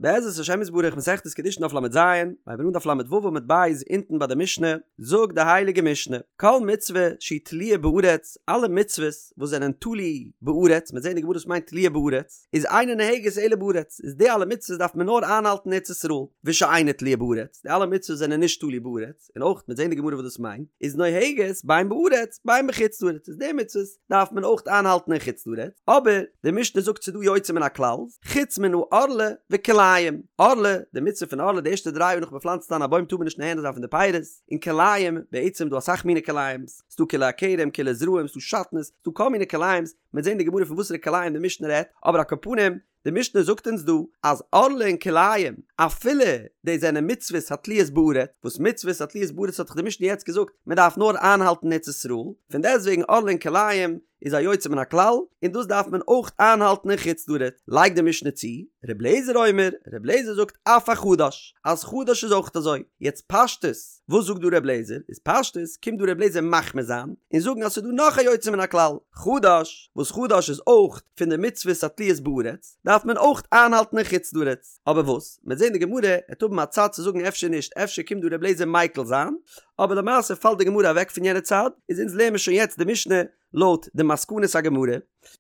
בעזרת השם יתברך מסכת קידושין דף לז, מ'הייבן אן דף לו עמוד ב' אונטן ביי די משנה, זאגט די הייליגע משנה, כל מצוה שהיא תלויה בארץ, אלע מצוות וואס זענען תלוי בארץ, מ'וועט זען אין די גמרא וואס מיינט תלויה בארץ, איז אינה נוהגת אלא בארץ, איז די אלע מצוות דארף מען נאר איינהאלטן אין ארץ ישראל, ושאינה תלויה בארץ, די אלע מצוות זענען נישט תלוי בארץ, און אויך מ'וועט זען אין די גמרא וואס דאס מיינט, איז נוהגת בין בארץ בין בחוץ לארץ, איז די מצוות דארף מען אויך איינהאלטן אין חוץ לארץ, אבער די משנה זאגט ס'איז דא יוצא מן הכלל, חוץ מן הערלה וכלאים, ערלה, די מצוה פון ערלה די ערשטע דריי יאר נאך מ'פלאנצט איין א בוים טאר מען נישט נהנה זיין פון די פירות, און כלאים, בעצם דא אסאך מיני כלאים'ס, ס'דא כלאי הכרם, כלאי זרעים, ס'דא שעטנז, ס'דא כל מיני כלאים'ס, מ'וועט זען אין די גמרא פון וואסערע כלאים די משנה רעדט, אבער על כל פנים, די משנה זאגט אונז דא אז ערלה און כלאים אפילו די זענען מצוות התלויות בארץ, וואס מצוות התלויות בארץ האט דאך די משנה יעצט געזאגט מען דארף נאר איינהאלטן אין ארץ ישראל, פון דעסטוועגן ערלה און כלאים איז א יוצא מן הכלל און דאס דארף מען אויך איינהאלטן אין חוץ לארץ, לייגט די משנה צו, ר' אליעזר אומר, ר' אליעזר זאגט אף החדש, אז חדש איז אויך אזוי, יעצט פשטות, וואס זאגט דא ר' אליעזר, איז פשטות קומט דא ר' אליעזר מחמיר זיין און זאגן אז ס'איז דא נאך א יוצא מן הכלל, חדש, וואס חדש איז אויך פון די מצוות התלויות בארץ, דארף מען אויך איינהאלטן אין חוץ לארץ. אבער וואס? מ'וועט זען די גמרא עט האבן א צד צו זאגן אפשר נישט, אפשר קומט דא ר' אליעזר מיקל זיין, אבער למעשה פאלט די גמרא אוועק פון יענע צד, איז אונז לערן מיר שוין יעצט די משנה לויט די מסקנות הגמרא,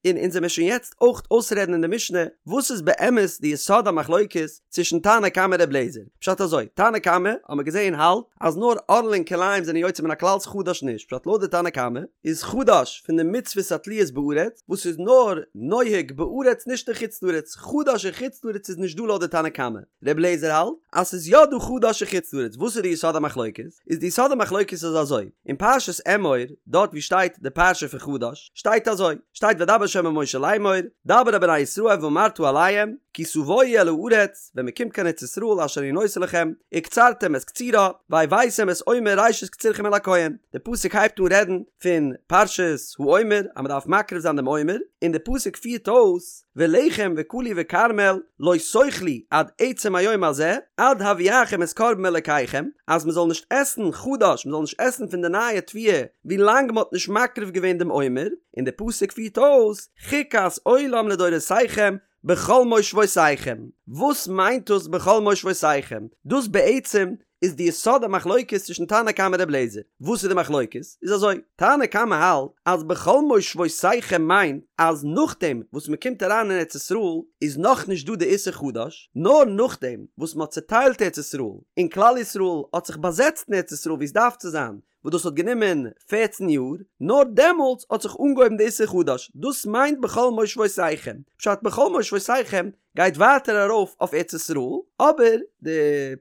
און אונז עמיר שוין יעצט אויך אויסרעדן אין די משנה וואס איז באמת די יסוד המחלוקת צווישן תנא קמא ר' אליעזר. פשט אזוי, תנא קמא האט מען געזען האלט אז נאר ערלה און כלאים זענען יוצא מן הכלל חדש נישט, פשט לויט די תנא קמא איז חדש פון די מצוות התלויות בארץ וואס איז נאר נוהג בארץ נישט אין חוץ לארץ, חדש אין חוץ לארץ איז נישט דא לויט די תנא קמא. ר' אליעזר האלט אז ס'איז יא דא חדש אין חוץ לארץ, וואס איז די יסוד המחלוקת? איז די יסוד המחלוקת איז אזוי, אין פרשת אמור דארט ווי שטייט די פרשה פון חדש שטייט אזוי, שטייט וידבר ה' אל משה לאמור, דבר אל בני ישראל ואמרת אליהם, כי תבואו אל הארץ, ווען מען קומט קיין ארץ ישראל אשר אני נותן לכם, וקצרתם את קצירה, והבאתם את עומר ראשית קצירכם אל הכהן, די פסוק הייבט אן רעדן פון פרשת העומר אז מען דארף מקריב זיין דעם עומר, און די פסוק פירט אויס, ולחם וקלי וכרמל לא תאכלו עד עצם היום הזה, עד הביאכם את קרבן אלקיכם, אז מען זאל נישט עסן חדש, מען זאל נישט עסן פון די נייע תבואה ווי לאנג מען האט נישט מקריב געווען דעם עומר, און די פסוק פירט אויס, חוקת עולם לדורותיכם בכל מושבותיכם. וואס מיינט דאס בכל מושבותיכם? דאס בעצם איז די יסוד המחלוקת צווישן תנא קמא ר' אליעזר. וואס איז די מחלוקת? איז אזוי, תנא קמא האלט אז בכל מושבותיכם מיינט אז נאכדעם וואס מען קומט אריין אין ארץ ישראל איז נאכנישט דא די איסור חדש, נאר נאכדעם וואס מען האט צוטיילט ארץ ישראל און כלל ישראל האט זיך באזעצט אין ארץ ישראל ווי עס דארף צו זיין, וואס דאס האט גענומען פערצן יאר, נאר דעמאלטס האט זיך אנגעהויבן די איסור חדש, דאס מיינט בכל מושבותיכם, פשט בכל מושבותיכם גייט ווייטער ארויף אויף ארץ ישראל, אבער די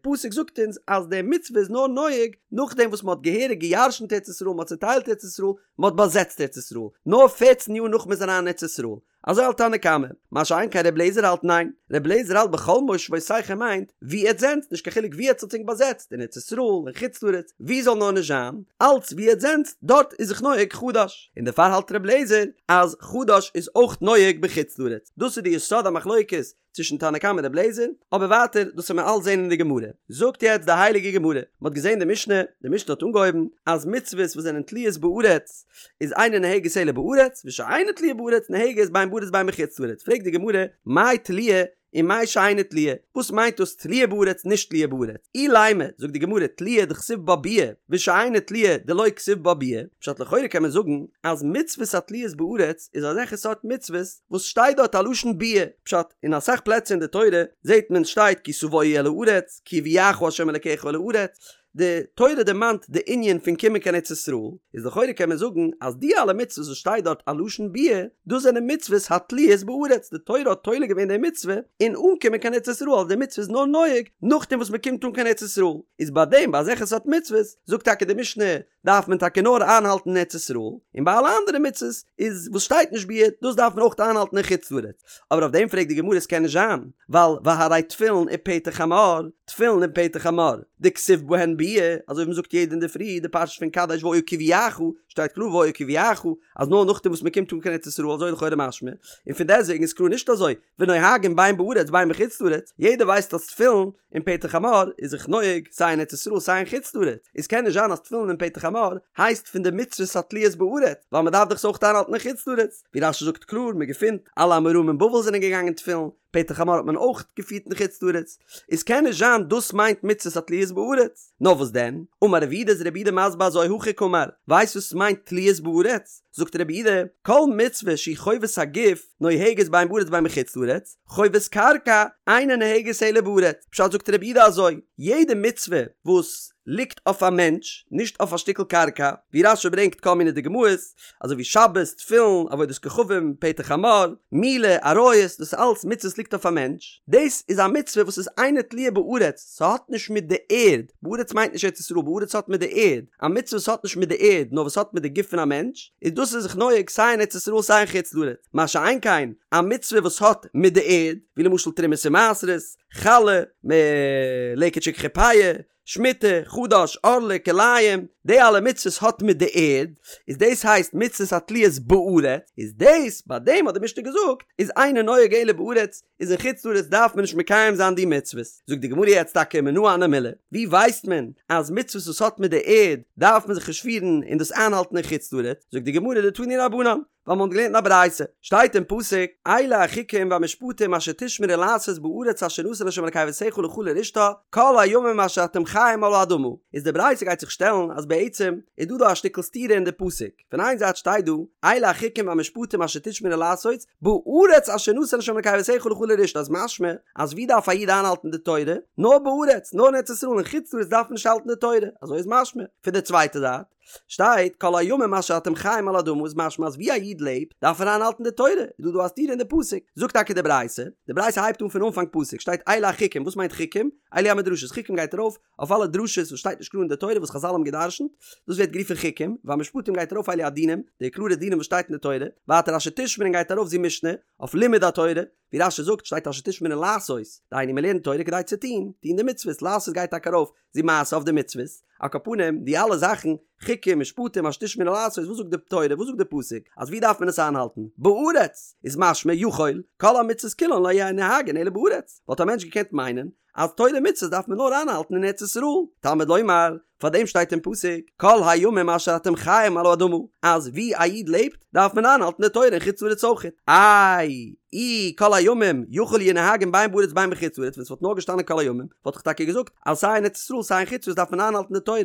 פסוק זאגט אונז אז די מצוה איז נאר נוהג נאכדעם וואס מען האט געהעריג גע'ירש'נט ארץ ישראל, מען האט צוטיילט ארץ ישראל, מען האט באזעצט ארץ ישראל, נאר פערצן יאר נאך מען איז אריין אין ארץ ישראל, אזוי האלט תנא קמא, מה שאין כן ר' לעזער האלט ניין, ר' לעזער האלט בכל מושבותיכם מיינט ווי עטס זענטס, נישט קיין חילוק ווי עטס האט ענק באזעצט, אין ארץ ישראל, אין חוץ לארץ, ווי זאל נאר נישט זיין, אלץ ווי עטס זענטס, דארט איז זיך נוהג חדש, און דערפאר האלט ר' לעזער אז חדש איזאויך נוהג בחוץ לארץ, דאס איז די יסוד המחלוקת צווישן תנא קמא און ר' לעזער, אבער ווייטער דאס וועט מען אלץ זען אין די גמרא. זאגט יעצט די הייליגע גמרא, מען האט געזען די משנה, די משנה האט אנגעהויבן אז מצוות וואס זענען תלויות בארץ איז אינה נוהגת אלא בארץ, ושאינה תלויה בארץ נוהגת בין בארץ בין בחוץ לארץ, פרעגט די גמרא, מאי תלויה ומאי שאינה תלויה, וואס מיינט דאס תלויה בארץ נישט תלויה בארץ? אילימא, זאגט די גמרא, תלויה דכתיב בה ביאה, ושאינה תלויה דלא כתיב בה ביאה, פשט לכאורה קען מען זאגן אז מצוות התלויות בארץ איז אזעלכע סארט מצוות וואס שטייט דארט א לשון ביאה, פשט, אין אסאך פלעצער אין די תורה זעט מען שטייט כי תבואו אל הארץ, כי יביאך ה' אלקיך אל הארץ, די תורה דערמאנט די ענין פון קומען קיין ארץ ישראל, איז לכאורה קען מען זאגן אז די אלע מצוות וואס שטייט דארט א לשון ביאה, דאס זענען מצוות התלויות בארץ, די תורה האט תולה געווען די מצוה אין אנקומען קיין ארץ ישראל, אז די מצוה איז נאר נוהג נאכדעם וואס מען קומט אן קיין ארץ ישראל, איז ביי דעם ביי אזעלכע סארט מצוות זאגט טאקע די משנה דארף מען טאקע נאר איינהאלטן אין ארץ ישראל, און ביי אלע אנדערע מצוות איז וואס שטייט נישט ביאה, דאס דארף מען אויך איינהאלטן אין חוץ לארץ. אבער אויף דעם פרעגט די גמרא עס קען נישט זיין, ווייל והרי תפילין ופטר חמור, תפילין און פטר חמור, דכתיב בהן ביאה, אזוי ווי מען זאגט יעדע אינדערפרי די פרשה פון קדש והיה כי יביאך, שטייט קלאר והיה כי יביאך, אז נאר נאכדעם וואס מען קומט אן קיין ארץ ישראל אזוי לכאורה משמע, און פון דעסטוועגן איז קלאר נישט אזוי, ונוהגין בין בארץ בין בחוץ לארץ, יעדער ווייסט אז תפילין און פטר חמור איז זיך נוהג סיי אין ארץ ישראל סיי אין חוץ לארץ, איז קען נישט זיין אז תפילין און פטר חמור הייסט פון די מצוות התלויות בארץ, ווייל מען דארף דאך עס אויך איינהאלטן אין חוץ לארץ, ווי רש"י זאגט קלאר, מען געפינט אלע אמוראים אין בבל זענען געגאנגען תפילין. פטר חמור האט מען אויך געפירט אין חוץ לארץ, איז קען נישט זיין דאס מיינט מצוות התלויות בארץ, נאר וואס דען? אמר רב יהודה איז רב יהודה מסביר אזוי הכי קאמר, ווייסט וואס מיינט תלויות בארץ? זאגט רב יהודה, כל מצוה שהיא חובת הגוף נוהגת בין בארץ בין בחוץ לארץ, חובת קרקע אינה נוהגת אלא בארץ, פשט זאגט רב יהודה אזוי, יעדע מצוה וואס ליגט אויף א מענטש, נישט אויף א שטיקל קרקע, ווי רש"י ברענגט כל מיני דוגמאות, אזוי ווי שבת, תפילין, עבודת כוכבים, פטר חמור, מילה, עריות, דאס איז אלץ מצוות ליגט אויף א מענטש, דאס איז א מצוה וואס איז אינה תלויה בארץ, ס'האט נישט מיט די ערד, בארץ מיינט נישט ארץ ישראל, בארץ האט מיט די ערד, א מצוה וואס האט נישט מיט די ערד נאר וואס האט מיט די גוף פון א מענטש, איז דאס איז זיך נוהג סיי אין ארץ ישראל סיי אין חוץ לארץ, מה שאין כן א מצוה וואס האט מיט די ערד, ווי למשל תרומות ומעשרות, חלה, מלקט שכחה פאה, שמיטה, חדש, ערלה, כלאים, די אלע מצוות האט מיט די ערד, איז דאס הייסט מצוות התלויות בארץ, איז דאס, ביי דעם האט די משנה געזאגט, איז אינו נוהג אלא בארץ, איז אין חוץ לארץ דארף מען נישט מקיים זיין די מצוות. זאגט די גמרא יעצט טאקע מנא הני מילי, ווי ווייסט מען אז מצוות וואס האט מיט די ערד דארף מען זיך נישט פירן און דאס איינהאלטן אין חוץ לארץ, זאגט די גמרא דתנו רבנן, ווייל מען האט געלערנט אין א ברייתא, שטייט אין פסוק, אלה החוקים והמשפטים אשר תשמרו לעשות בארץ אשר נתן ה' אלקי אבותיך לך לרשתה, כל הימים אשר אתם חיים על האדמה. איז די ברייתא גייט זיך שטעלן אז בעצם איז דא דא א שטיקל סתירה אין די פסוק, פון איין זייט שטייט דא, אלה החוקים והמשפטים אשר תשמרו לעשות, בארץ אשר נתן ה' אלקי אבותיך לך לרשתה איז משמע אז ווי דארף א איד איינהאלטן די תורה? נאר בארץ, נאר אין ארץ ישראל, אין חוץ לארץ דארף מען נישט האלטן די תורה, אזוי איז משמע. פון די צווייטע זייט, שטייט כל הימים אשר אתם חיים על האדמה איז משמע אז ווי א איד לעבט דארף ער איינהאלטן די תורה, איז דא דא א סתירה אין די פסוק, זאגט טאקע די ברייתא, די ברייתא הייבט אן פון אנפאנג פסוק, שטייט אלה החוקים, וואס מיינט חוקים? אלו המדרשות, חוקים גייט ארויף אויף אלע דרשות וואס שטייט נישט קלאר אין די תורה וואס חזל האבן געדרשנט, דאס ווערט גערופן חוקים, והמשפטים גייט ארויף אלו הדינים, די קלארע דינים וואס שטייט אין די תורה, ווייטער אשר תשמרון גייט ארויף זו משנה, אויף לימוד התורה, ווי רש"י זאגט שטייט אשר תשמרון לעשות, דהיינו מען לערנט תורה כדי צו טון, טון די מצוות, לעשות גייט טאקע ארויף זו מעשה אויף די מצוות, על כל פנים די אלע זאכן, חוקים, משפטים, אשר תשמרון לעשות, וואס זאגט די תורה, וואס זאגט די פסוק, אז ווי דארף מען עס איינהאלטן? בארץ! איז משמע יכול, כל המצוות כולן לא יהו נוהגין אלא בארץ, וואלט א מענטש געקענט מיינען אז תורה ומצוות דארף מען נאר איינהאלטן אין ארץ ישראל, תלמוד לומר, פאר דעם שטייט אין פסוק, כל הימים אשר אתם חיים על האדמה, אז ווי א איד לעבט דארף מען איינהאלטן די תורה אין חוץ לארץ אויכעט. איי, אי כל הימים יכול יהו נוהגין בין בארץ בין בחוץ לארץ, ווען ס'וואלט נאר געשטאנען כל הימים, וואלט איך טאקע געזאגט אז סיי אין ארץ ישראל סיי אין חוץ לארץ דארף מען איינהאלטן די תורה,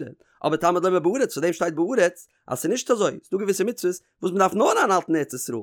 אבער תלמוד לומר בארץ, פאר דעם שטייט בארץ, אז ס'איז נישט אזוי, ס'דא געוויסע מצוות וואס מ'דארף נאר איינהאלטן אין ארץ ישראל.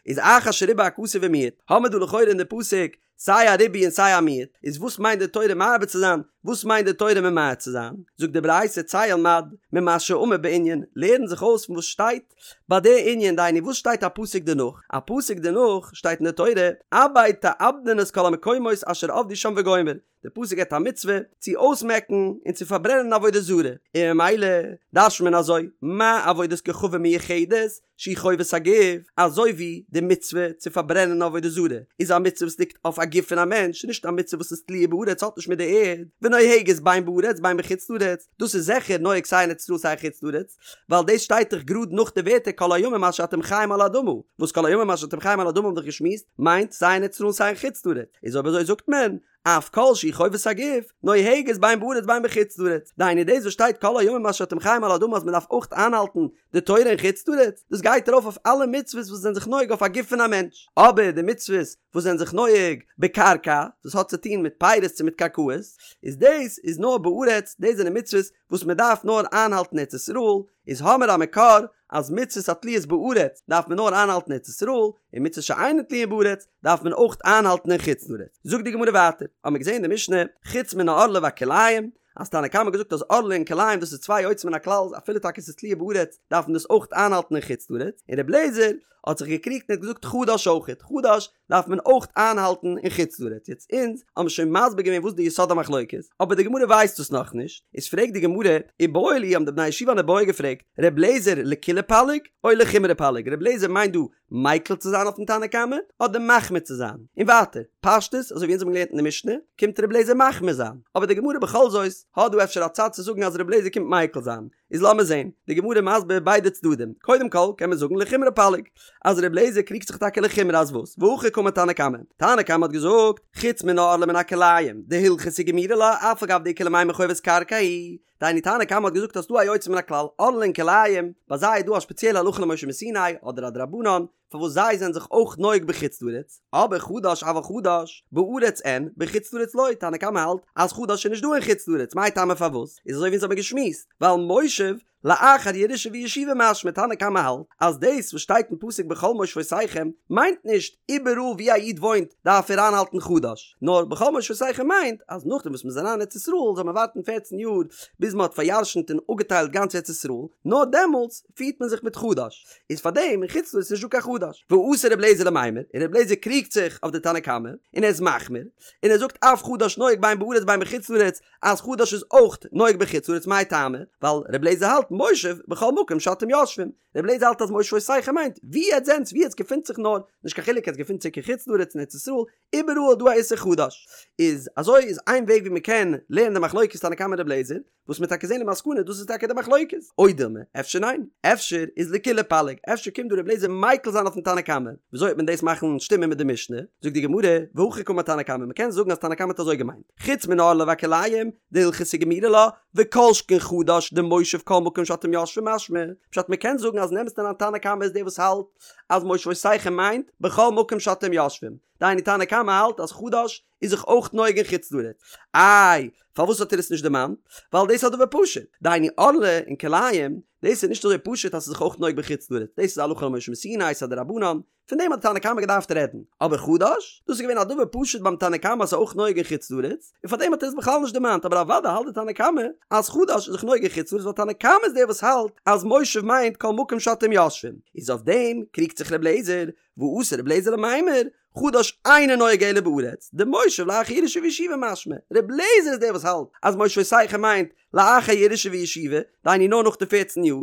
איז אחר שריבה הכתוב ומיעט, האמיר דא לכאורה אין די פסוק סיי א ריבוי און סיי א מיעוט, איז וואס מיינט די תורה מרבה צו זיין, וואס מיינט די תורה ממעט צו זיין? זאגט די ברייתא צא ולמד ממה שאמור בענין, לערן זיך אויס פון וואס שטייט ביי די ענין, דהיינו וואס שטייט א פסוק דערנאך, א פסוק דערנאך שטייט אין די תורה, אבד תאבדון את כל המקומות אשר עבדו שם וגומר, די פסוק געבט א מצוה צו אויסמעקן און צו פארברענען עבודה זרה, און ממילא דרש'נט מען אזוי, מה עבודת כוכבים מיוחדת שהיא חובת הגוף, אזוי ווי די מצוה צו פארברענען עבודה זרה איז א מצוה וואס ליגט אויף א גוף פון א מענטש, נישט א מצוה וואס איז תלויה בארץ האט נישט מיט די ערד, ונוהגת בין בארץ בין בחוץ לארץ, דאס איז זיכער נוהג סיי אין ארץ ישראל סיי אין חוץ לארץ, ווייל דאס שטייט דאך גראד נאך די ווערטער כל הימים אשר אתם חיים על האדמה, וואס כל הימים אשר אתם חיים על האדמה האבן דאך געשמועסט מיינט סיי אין ארץ ישראל סיי אין חוץ לארץ, איז אויב אזוי זאגט מען אף כל שהיא חובת הגוף, נוהגת בין בארץ בין בחוץ לארץ. דהיינו דאס וואס שטייט כל הימים אשר אתם חיים על האדמה אז מען דארף אויך איינהאלטן די תורה אין חוץ לארץ, דאס גייט ארויף אויף אלע מצוות וואס זענען זיך נוהג אויף א גוף פון א מענטש. אבער די מצוות וואס זענען זיך נוהג בקרקע, דאס האט צו טון מיט פירות צו מיט קרקעות, איז דאס איז נאר בארץ, דאס זענען מצוות וואס מען דארף נאר איינהאלטן ארץ ישראל, איז האמיר א מקור אז מצוות התלויות בארץ דארף מען נאר איינהאלטן ארץ ישראל, און מצוות שאינן תלויין בארץ דארף מען אויך איינהאלטן אין חוץ לארץ. זאגט די גמרא ווייטער, האמיר געזען אין די משנה, חוץ מן הערלה והכלאים, אז תנא קמא האט געזאגט אז ערלה און כלאים דאס איז צוויי יוצא מן הכלל, אפילו טאקע עס איז תלויה בארץ דארף מען דאס אויך איינהאלטן אין חוץ לארץ, און רבי אליעזר האט זיך געקריגט און האט געזאגט חדש אויכעט, חדש דארף מען אויך איינהאלטן אין חוץ לארץ, יעצט אונז האבן שוין מסביר געווען וואס די יסוד המחלוקת, אבער די גמרא ווייסט דאס נאכנישט, איז פרעגט די גמרא, איבעיא להו האבן די בני ישיבה אן איבעיא געפרעגט, ר' לעזער לקולא פליג או לחומרא פליג, ר' לעזער מיינט דא מיקל צו זיין אויפן תנא קמא אדער מחמיר צו זיין, און ווייטער, פשטות אזוי ווי אונז האבן געלערנט אין די משנה, קומט ר' לעזער מחמיר זיין, אבער די גמרא בכל זאת האט דא אפשר א צד צו זאגן אז ר' לעזער קומט מיקל זיין, איז לאמיר זעהן, די גמרא מסביר ביידע צדדים, קודם כל קען מען זאגן לחומרא פליג, אז ר' לעזער קריגט זיך טאקע לחומרא אז וואס, והכי קאמר תנא קמא, תנא קמא האט געזאגט, חוץ מן הערלה ומן הכלאים, דהלכתא גמירי לה, אף על גב דאיכא למימר חובת קרקע היא, דהיינו תנא קמא האט געזאגט אז ס'דא א יוצא מן הכלל, ערלה און כלאים, ביי זיי איז דא א שפעציעלע הלכה למשה מסיני, אדער א דרבנן, פארוואס זיי זענען זיך אויך נוהג בחוץ לארץ, אבער חדש אבל חדש, בארץ אין, בחוץ לארץ לא, תנא קמא האלט אז חדש איז נישט דא אין חוץ לארץ, מאי טעמא פארוואס? איז אזוי ווי אונז האבן געשמועסט, ווייל מושב לאחר ירושה וישיבה משמע תנא קמא האלט אז דאס וואס שטייט אין פסוק בכל מושבותיכם מיינט נישט איבעראל ווי א איד וואוינט דארף ער איינהאלטן חדש נאר בכל מושבותיכם מיינט אז נאכדעם וואס מ'איז אריין אין ארץ ישראל זאל מען ווארטן פערצן יאר ביז מ'האט פאריארשנט און אפגעטיילט גאנץ ארץ ישראל נאר דעמאלטס פירט מען זיך מיט חדש איז פארדעם אין חוץ לארץ נישט דא קיין חדש ואתא רבי אליעזר למימר און רבי אליעזר קריגט זיך אויף די תנא קמא און ער איז מחמיר און ער זאגט אף חדש נוהג בין בארץ בין בחוץ לארץ אז חדש איז אויך נוהג בחוץ לארץ מאי טעמא? ווייל ר' לעזער האלט מושב בכל מקום שאתם יושבים, ר' לעזער האלט אז מושבותיכם מיינט ווי עטס זענטס ווי עטס געפינט זיך נאר, נישט קיין חילוק עטס געפינט זיך אין חוץ לארץ אין ארץ ישראל, איבעראל איז דא א איסור חדש. איז אזוי איז איין וועג ווי מען קען לערנען די מחלוקת תנא קמא ר' לעזער, וואס מ'עט טאקע זען למסקנא דאס איז טאקע די מחלוקת, או דילמא, אפשר ניין, אפשר איז לקולא פליג, אפשר קומט דא ר' לעזער מיקל זיין אויפן תנא קמא, וויאזוי וועט מען דאס מאכן שטימען מיט די משנה, זאגט די גמרא, והכי קאמר תנא קמא, מ'קען זאגן אז תנא קמא האט אזוי געמיינט. חוץ מן הערלה והכלאים, דהלכתא גמירי לה, וכל שכן חדש דמושב כל מקום שאתם יושבים משמע, פשט מ'קען זאגן אז אין אמת'ן אריין תנא קמא איז דער וואס האלט אז מושבותיכם מיינט בכל מקום שאתם יושבים, דהיינו תנא קמא האלט אז חדש איז זיך אויך נוהג אין חוץ לארץ, איי פארוואס האט ער עס נישט דערמאנט? ווייל דאס איז א דבר פשוט, דהיינו ערלה און כלאים, דאס איז נישט אזוי פשוט אז ס'איז זיך אויך נוהג בחוץ לארץ, דאס איז הלכה למשה מסיני, ס'איז א דרבנן, פון דעם האט די תנא קמא געדארפט רעדן. אבער חדש? דאס איז געווען א דבר פשוט ביים תנא קמא אז ס'איז אויך נוהג אין חוץ לארץ, און פאר דעם האט ער עס בכלל נישט דערמאנט, אבער אוודאי האלט די תנא קמא אז חדש איז זיך נוהג אין חוץ לארץ ווייל תנא קמא איז דער וואס האלט אז מושב מיינט כל מקום שאתם יושבים. איז אויף דעם קריגט זיך ר' לעזער, ואתא ר' לעזער למימר, חדש אינו נוהג אלא בארץ, דמושב לאחר ירושה וישיבה משמע, ר' לעזער איז דער וואס האלט אז מושבותיכם מיינט לאחר ירושה וישיבה, דהיינו נאר נאך די פערצן יאר,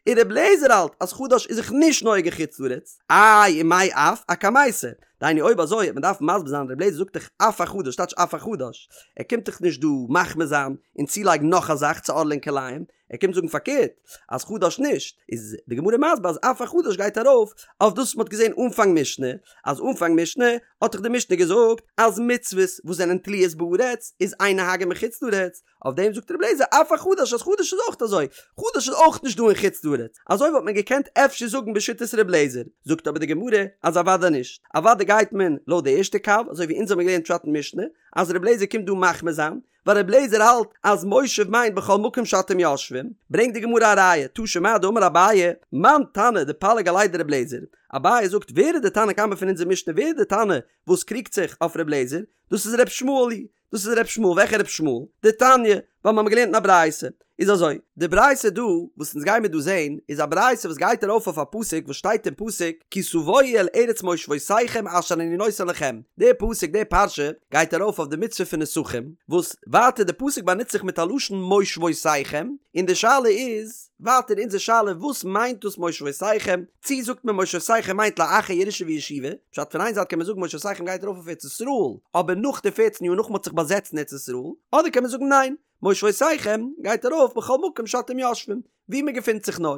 און ר' לעזער האלט אז חדש איז זיך נישט נוהג אין חוץ לארץ, איי ומאי אף אקמייתא, דהיינו אויב אזוי וועט מען דארפן מסביר זיין ר' לעזער זאגט דאך אף החדש טייטש אף החדש, ער קומט דאך נישט דא מחמיר זיין און צולייגן נאך א זאך צו ערלה און כלאים, ער קומט זאגן פארקערט אז חדש נישט, איז די גמרא מסביר אז אף החדש גייט ארויף אויף דאס וואס מען האט געזען אנפאנג משנה, אז אנפאנג משנה האט דאך די משנה געזאגט אז מצוות וואס זענען תלויות בארץ איז אין נוהגין בחוץ לארץ, אויף דעם זאגט רבי אליעזר אף החדש אז חדש איז אויך אזוי, חדש איז אויך נישט דא אין חוץ לארץ, אזוי וואלט מען געקענט אפשר זאגן בשיטת רבי אליעזר, זאגט אבער די גמרא אז אוודאי נישט, אוודאי גייט מען לויט די ערשטע קו, אזוי ווי אונז האבן געלערנט פשט אין משנה, אז רבי אליעזר קומט דא מחמיר זיין, ווייל רבי אליעזר האלט אז מושב מיינט בכל מקום שאתם יושבים, ברענגט די גמרא א ראיה, תא שמע דאמר אביי, מאן תנא דפליג עליה דרבי אליעזר, אביי זאגט ווער איז די תנא קמא פון אונזער משנה ווער איז די תנא וואס קריגט זיך אויף רבי אליעזר, דאס איז ר' ישמעאל היא, דאס איז ר' ישמעאל, וועלכע ר' ישמעאל? דתניא, ווייל מיר האבן געלערנט אין א ברייתא. איז אזוי, די ברייתא דא, וואס אונז גיימיר דא זעהן, איז א ברייתא וואס גייט ארויף אויף א פסוק וואס שטייט אין פסוק כי תבואו אל ארץ מושבותיכם אשר אני נותן לכם, די פסוק, די פרשה, גייט ארויף אויף די מצוה פון נסכים, וואס ווייטער די פסוק באנוצט זיך מיט א לשון מושבותיכם, און די שאלה איז, ווייטער אונזער שאלה וואס מיינט דאס מושבותיכם, צי זאגט מען מושבותיכם מיינט לאחר ירושה וישיבה, פשט פון איין זייט קען מען זאגן מושבותיכם גייט ארויף אויף ארץ ישראל, אבער נאך די פערצן יאר נאך מען האט זיך באזעצט אין ארץ ישראל, אדער קען מען זאגן ניין, מושבותיכם גייט ארויף בכל מקום שאתם יושבים, ווי מען געפינט זיך נאר.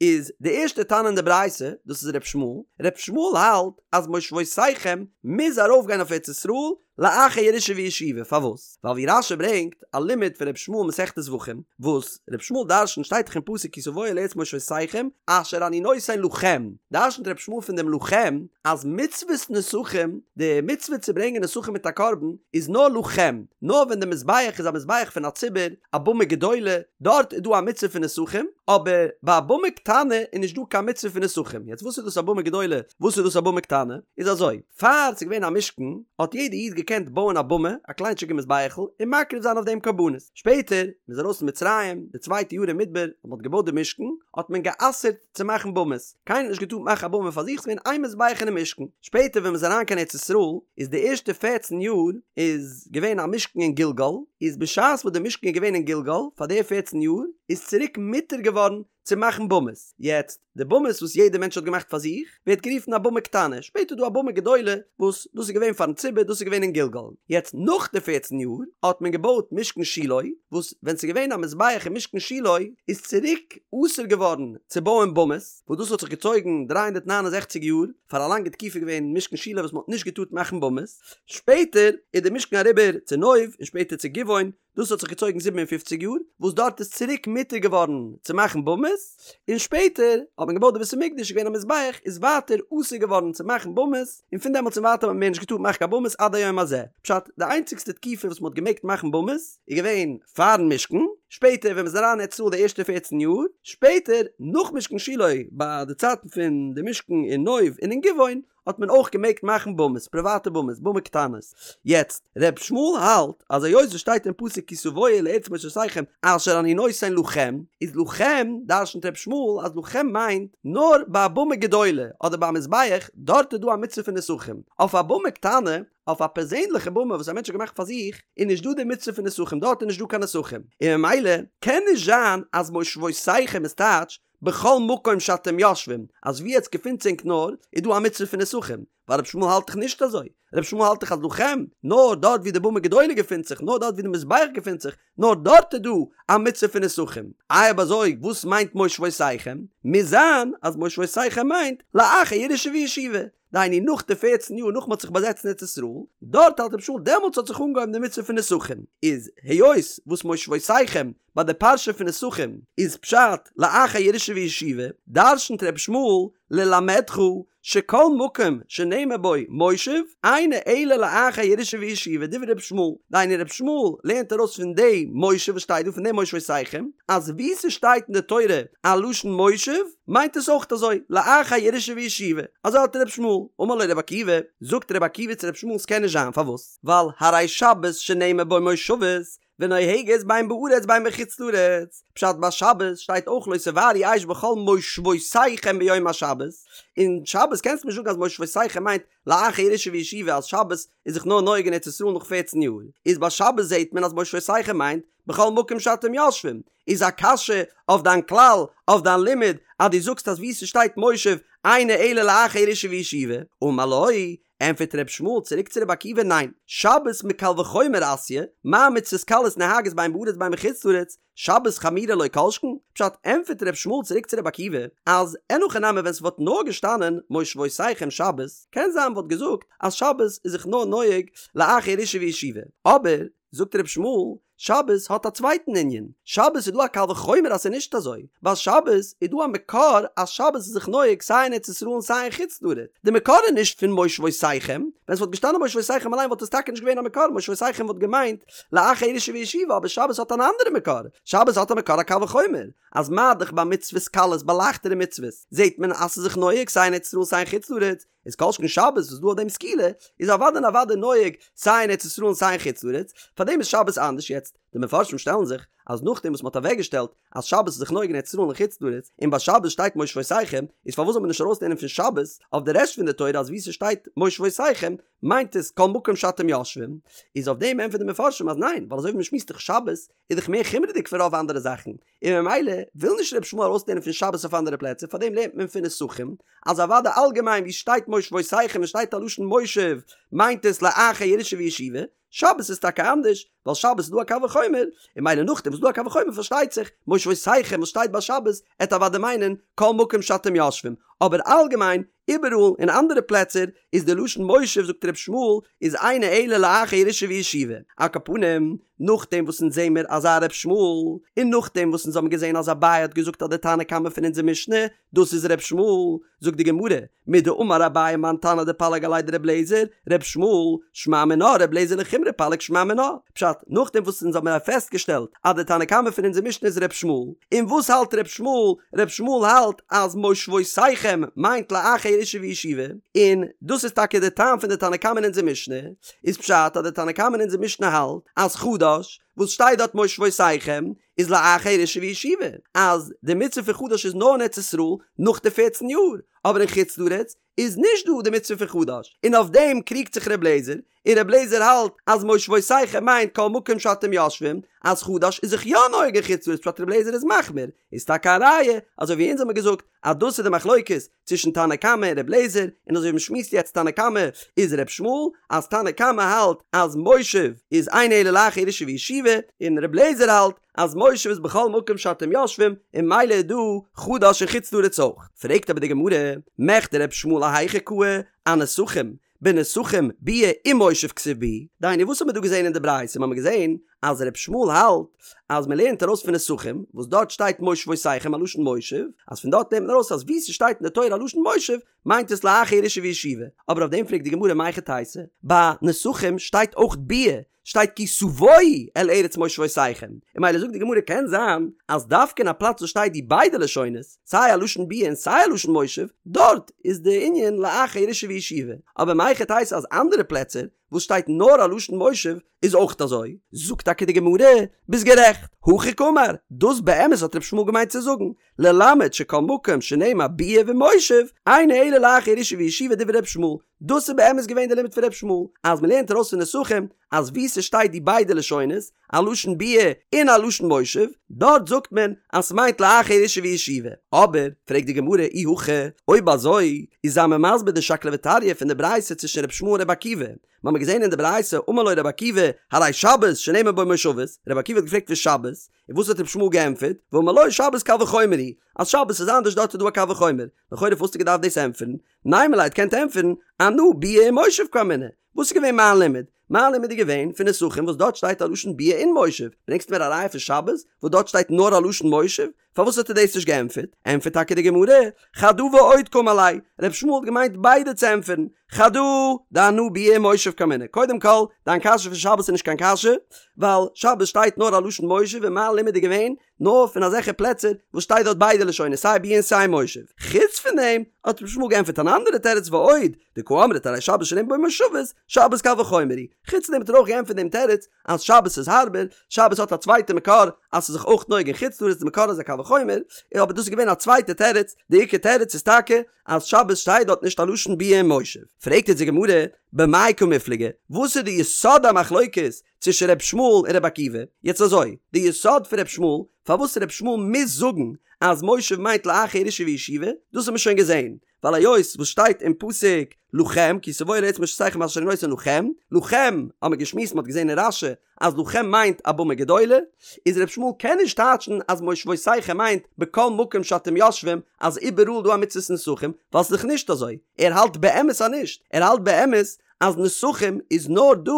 איז די ערשטע תנא אין די ברייתא, דאס איז ר' ישמעאל, ר' ישמעאל האלט אז מושבותיכם מוז ארויפגיין אויף ארץ ישראל לאחר ירושה וישיבה, פארוואס? ווייל ווי רש"י ברענגט א לימוד פון ר' ישמעאל מסכת זבחים, וואס ר' ישמעאל דרשנט שטייט דאך אין פסוק כי תבואו אל ארץ מושבותיכם אשר אני נותן לכם, דרשנט ר' ישמעאל פון דעם לכם אז מצוות נסכים, די מצוה צו ברענגען נסכים מיט א קרבן איז נאר לכם, נאר ווען די מזבח איז א מזבח פון א ציבור, א במה גדולה, דארט איז דא א מצוה פון נסכים, אבער ביי א במה קטנה איז נישט דא קיין מצוה פון נסכים, יעצט וואס איז דאס א במה גדולה, וואס איז דאס א במה קטנה, איז אזוי, פאר ס'איז געווען א משכן, האט יעדע איד געקענט בויען א במה, א קליינטשיגע מזבח'ל, און מקריב זיין אויף דעם קרבנות. שפעטער, מ'איז ארויס פון מצרים, די צווייטע יאר אין מדבר, ווען מ'האט געבויט די משכן, האט מען גע'אסר'ט צו מאכן במות. קיינער האט נישט געטארט מאכן א במה פאר זיך, ס'איז געווען איין מזבח אינעם משכן. שפעטער ווען מ'איז אריין קיין ארץ ישראל, איז די ערשטע פערצן יאר איז געווען א משכן אין גלגל, איז בשעת וואס די משכן איז געווען אין גלגל, פאר די פערצן יאר, איז צוריק מותר געווארן צו מאכן במות. יעצט, די במות וואס יעדער מענטש האט געמאכט פאר זיך, ווערט גערופן א במה קטנה, שפעטער איז דא א במה גדולה, וואס דאס איז געווען פארן ציבור, דאס איז געווען אין גלגל. יעצט נאך די פערצן יאר, האט מען געבויט משכן שילה, וואס ווען ס'איז געווען א מזבח אין משכן שילה, איז צוריק אסור געווארן צו בויען במות, וואס דאס האט זיך געצויגן 369 יאר, פאר א לאנגע תקופה איז געווען משכן שילה וואס מ'האט נישט געטארט מאכן במות, שפעטער איז די משכן אריבער צו נוב, און שפעטער צו גבעון, דאס האט זיך געצויגן זיבן און פופציג יאר, וואס דארט איז צוריק מותר געווארן צו מאכן במות. במות, און שפעטער האט מען געבויט די בית המקדש איז געווען א מזבח איז ווייטער אסור געווארן צו מאכן במות, און פון דעמאלטס און ווייטער האט מען מער נישט געטארט מאכן קיין במות עד היום הזה. פשט, די איינציגסטע תקופה וואס מען האט געמעגט מאכן במות איז געווען פארן משכן, שפעטער ווען מען איז אריין אין ארץ ישראל די ערשטע פערצן יאר, שפעטער נאך משכן שילה ביי די צייטן פון די משכן אין נוב און אין גבעון האט מען אויך געמעגט מאכן במות, פריוואטע במות, במה קטנות. יעצט, ר' ישמעאל האלט אז היות עס שטייט אין פסוק כי תבואו אל ארץ מושבותיכם אשר אני נותן לכם, איז לכם דרשנ'ט ר' ישמעאל אז לכם מיינט נאר ביי א במה גדולה אדער ביי א מזבח, דארט איז דא א מצוה פון נסכים. אויף א במה קטנה, אויף א פערזענליכע במה וואס א מענטש האט געמאכט פאר זיך, איז נישט דא די מצוה פון נסכים, דארט איז נישט דא קיין נסכים. און ממילא קען נישט זיין אז מושבותיכם איז טייטש בכל מקום שאתם יושבים, אז ווי עטס געפינטס ענק נאר, איז דא א מצוה פון נסכים, ווייל רבי ישמעאל האלט דאך נישט אזוי, רבי ישמעאל האלט דאך אז לכם, נאר דארט ווי די במה גדולה געפינט זיך, נאר דארט ווי די מזבח געפינט זיך, נאר דארט איז דא א מצוה פון נסכים. איי אויב אזוי וואס מיינט מושבותיכם? מוז זיין אז מושבותיכם מיינט לאחר ירושה וישיבה, דהיינו נאך די פערצן יאר נאך מען האט זיך באזעצט אין ארץ ישראל, דארט האלט רבי ישמעאל דעמאלטס האט זיך אנגעהויבן די מצוה פון נסכים, איז היות וואס מושבותיכם ביי די פרשה פון נסכים איז פשט לאחר ירושה וישיבה, דרשנ'ט רבי ישמעאל ללמדך שכל מקום שנאמר בו מושב אינו אלא לאחר ירושה וישיבה דברי רבי ישמעאל, דהיינו רבי ישמעאל לערנט ארויס פון די מושב וואס שטייט דא פון די מושבותיכם אז וואו ס'שטייט אין די תורה א לשון מושב מיינט עס אויך אזוי לאחר ירושה וישיבה, אזוי האלט רבי ישמעאל, אמר לו רבי עקיבא, זאגט רבי עקיבא צו רבי ישמעאל ס'קען נישט זיין פארוואס? ווייל הרי שבת שנאמר בו מושבות ונוהגת בין בארץ בין בחוץ לארץ, פשט ביי שבת שטייט אויך לא תבערו אש בכל מושבותיכם ביום השבת, און שבת קענסטו נישט זאגן אז מושבותיכם מיינט לאחר ירושה וישיבה אז שבת איז זיך נאר נוהג אין ארץ ישראל נאך פערצן יאר, איז ביי שבת זעהט מען אז מושבותיכם מיינט בכל מקום שאתם יושבים, איז א קשיא אויף דיין כלל, אויף דיין לימוד, אז דו זאגסט אז וואו ס'שטייט מושב אינו אלא לאחר ירושה וישיבה, אמר לו, ענטפערט ר' ישמעאל צוריק צו ר' עקיבא ניין, שבת מקל וחומר אתיא, מה מצוות קלות נוהגות בין בארץ בין בחוץ לארץ, שבת חמורה לא כל שכן, פשט, ענטפערט ר' ישמעאל צוריק צו ר' עקיבא, אז אין הכי נמי ווען ס'וואלט נאר געשטאנען מושבותיכם שבת, קען זיין מ'וואלט געזאגט אז שבת איז זיך נאר נוהג לאחר ירושה וישיבה, אבער, זאגט ר' ישמעאל, שבת האט א צווייטן ענין, שבת איז דא א קל וחומר אז ס'איז נישט אזוי, ביי שבת איז דא א מקור אז שבת איז זיך נוהג סיי אין ארץ ישראל און סיי אין חוץ לארץ, די מקור איז נישט פון מושבותיכם, ווען ס'וואלט געשטאנען מושבותיכם אליין וואלט עס טאקע נישט געווען א מקור, מושבותיכם וואלט געמיינט לאחר ירושה וישיבה, אבער שבת האט אן אנדערע מקור, שבת האט א מקור א קל וחומר, אז מה דאך ביי מצוות קלות ביי לייכטערע מצוות זעט מען אז ס'איז זיך נוהג סיי אין ארץ ישראל סיי אין חוץ לארץ, איז כל שכן שבת וואס דא אויף דעם סקילה איז אוודאי און אוודאי נוהג סיי אין ארץ ישראל און סיי אין חוץ לארץ, פארדעם איז שבת אנדערש יעצט די מפרשים שטעלן זיך אז נאכדעם וואס מ'האט אוועקגעשטעלט אז שבת איז זיך נוהג אין ארץ ישראל און חוץ לארץ און ביי שבת שטייט מושבותיכם איז פארוואס זאל מען נישט ארויסלערנען פון שבת אויף די רעשט פון די תורה אז וואו ס'שטייט מושבותיכם מיינט עס כל מקום שאתם יושבים איז אויף דעם ענטפערן די מפרשים אז ניין ווייל אזוי ווי מ'שמועסט דאך שבת איז דאך מער חומרה'דיג פון רוב אנדערע זאכן און ממילא וויל נישט ר' ישמעאל ארויסלערנען פון שבת אויף אנדערע פלעצער פארדעם לערנט מען פון נסכים אז אוודאי אלגעמיין ווי שטייט מושבותיכם און שטייט א לשון מושב מיינט עס לאחר ירושה וישיבה, שבת איז טאקע אנדערש ווייל שבת איז דא א קל וחומר, און ממילא נאכדעם וואס איז דא א קל וחומר פארשטייט זיך מושבותיכם וואס שטייט ביי שבת עט אוודאי מיינען כל מקום שאתם יושבים, אבער אלגעמיין איבעראל אין אנדערע פלעצער איז די לשון מושב זאגט ר' ישמעאל איז אינו אלא לאחר ירושה וישיבה, על כל פנים נאכדעם וואס אונז זעמער אזא ר' ישמעאל, און נאכדעם וואס אונז האבן געזען אז אביי האט געזאגט אז די תנא קמא פון אונזער משנה דאס איז ר' ישמעאל, זאגט די גמרא, מדאמר אביי מאן תנא דפליג עליה דר' אליעזר, ר' ישמעאל, שמע מינה ר' אליעזר לחומרא פליג שמע מינה, פשט, נאכדעם וואס אונז האבן פעסטגעשטעלט אז די תנא קמא פון אונזער משנה איז ר' ישמעאל, און וואס האלט ר' ישמעאל? ר' ישמעאל האלט אז מושבותיכם מיינט לאחר ירושה וישיבה, און דאס איז טאקע די טעם פון די תנא קמא אין אונזער משנה, איז פשט אז די תנא קמא אין אונזער משנה האלט אז חדש, וואס שטייט דארט מושבותיכם, איז לאחר ירושה וישיבה, אז די מצוה פון חדש איז נאר אין ארץ ישראל נאך די פערצן יאר, אבער אין חוץ לארץ איז נישט דא די מצוה פון חדש, און אויף דעם קריגט זיך ר' לעזער, און ר' לעזער האלט אז מושבותיכם מיינט כל מקום שאתם יושבים, אז חדש איז זיך יא נוהג אין חוץ לארץ פשט ר' לעזער איז מחמיר, איז טאקע א ראיה, אזוי ווי אונז האמיר געזאגט אז דאס איז די מחלוקת צווישן תנא קמא און ר' לעזער, און אזוי ווי מ'שמועסט יעצט תנא קמא איז ר' ישמעאל, אז תנא קמא האלט אז מושב איז אינו אלא לאחר ירושה וישיבה, און ר' לעזער האלט אז מושב איז בכל מקום שאתם יושבים, און ממילא איז דא חדש אין חוץ לארץ אויך. פרעגט אבער די גמרא, מכדי ר' ישמעאל אהיכא קאי, אנסכים? בנסכים ביאה ומושב כתיב בהו, דהיינו וואס האט מען דא געזען אין די ברייתא? מ'האמיר געזען אז ר' ישמעאל האלט אז מ'לערנט ארויס פון נסכים וואס דארט שטייט מושבותיכם א לשון מושב, אז פון דארט לערנט מען ארויס אז וואו ס'שטייט אין די תורה א לשון מושב מיינט עס לאחר ירושה וישיבה, אבער אויף דעם פרעגט די גמרא מהיכי תיתי, ביי נסכים שטייט אויך ביאה, שטייט כי תבואו אל ארץ מושבותיכם, און ממילא זאגט די גמרא קען זיין אז דווקא אין א פלאץ וואס שטייט די ביידע לשונות, סיי א לשון ביאה און סיי א לשון מושב, דארט איז די ענין לאחר ירושה וישיבה, אבער מהיכי תיתי אז אנדערע פלעצער וואס שטייט נאר א לשון מושב איז אויך אזוי? זאגט טאקע די גמרא, ביסט גערעכט, הכי קאמר, דאס באמת האט ר' ישמעאל געמיינט צו זאגן, ללמד שכל מקום שנאמר ביאה ומושב, אינו אלא לאחר ירושה וישיבה דברי ר' ישמעאל, דאס איז באמת געווען די לימוד פון ר' ישמעאל, אז מ'לערנט ארויס פון נסכים אז וואו ס'שטייט די ביידע לשונות, א לשון ביאה און א לשון מושב, דארט זאגט מען אז ס'מיינט לאחר ירושה וישיבה. אבער, פרעגט די גמרא אי הכי, אויב אזוי, איז זיי מיר מסביר די שקלא וטריא פון די ברייתא צווישן ר' ישמעאל און ר' עקיבא. מ'האמיר געזען אין די ברייתא אמר לו ר' עקיבא, הרי שבת שנאמר בו מושבות, ר' עקיבא האט געפרעגט פון שבת, און וואס האט ר' ישמעאל געענטפערט, ואמר לו שבת קל וחומר היא, אז שבת איז אנדערש דארט איז דא א קל וחומר, לכאורה פארוואס האסטו געדארפט דאס ענטפערן? נימא ליה קענט ענטפערן, אנא ביאה ומושב קאמינא. וואס איז געווען מיין לימוד? מיין לימוד איז געווען פון נסכים וואס דארט שטייט א לשון ביאה און מושב. ברענגסט מיר א ראיה פון שבת וואס דארט שטייט נאר א לשון מושב? פארוואס האט ער דאס נישט געענטפערט? ענטפערט טאקע די גמרא, חדא ועוד קאמר ליה, ר' ישמעאל האט געמיינט ביידע צו ענטפערן, חדא דאנא ביאה ומושב קאמינא. קודם כל, דיין קשיא פון שבת איז נישט קיין קשיא, ווייל שבת שטייט נאר א לשון מושב און מיין לימוד איז געווען נאר פון אזעלכע פלעצער וואס שטייט דארט ביידע לשונות סיי ביאה און סיי מושב. חוץ פון דעם האט ר' ישמעאל געענטפערט אן אנדערע תירוץ ועוד, דקא אמרת הרי שבת שנאמר בו מושבות, שבת קל וחומר היא. חוץ פון דעם האט ער אויך געענטפערט דעם תירוץ אז שבת איז הארבער, שבת האט א צווייטע מקור אז ס'איז זיך אויך נוהג אין חוץ לארץ די מקור איז א קל וחומר, אבער דאס איז געווען א צווייטע תירוץ, די עיקר תירוץ איז טאקע אז שבת שטייט דארט נישט א לשון ביאה און מושב. פרעגט יעצט די גמרא, במאי קמיפלגי, וואס איז די יסוד המחלוקת צווישן ר' ישמעאל און ר' עקיבא, יעצט אזוי, די יסוד פון ר' ישמעאל, פארוואס ר' ישמעאל מוז זאגן אז מושב מיינט לאחר ירושה וישיבה, דאס האט מען שוין געזען, ווייל היות וואס שטייט אין פסוק לכם כי תבואו אל ארץ מושבותיכם אשר אני נותן לכם, לכם האט מען געשמועסט מען האט געזען אין רש"י אז לכם מיינט א במה גדולה, איז ר' ישמעאל קען נישט טייטשן אז מושבותיכם מיינט בכל מקום שאתם יושבים אז איבעראל דא א מצוות נסכים, ווייל ס'איז דאך נישט אזוי, ער האלט באמת אז נישט, ער האלט באמת אז נסכים איז נאר דא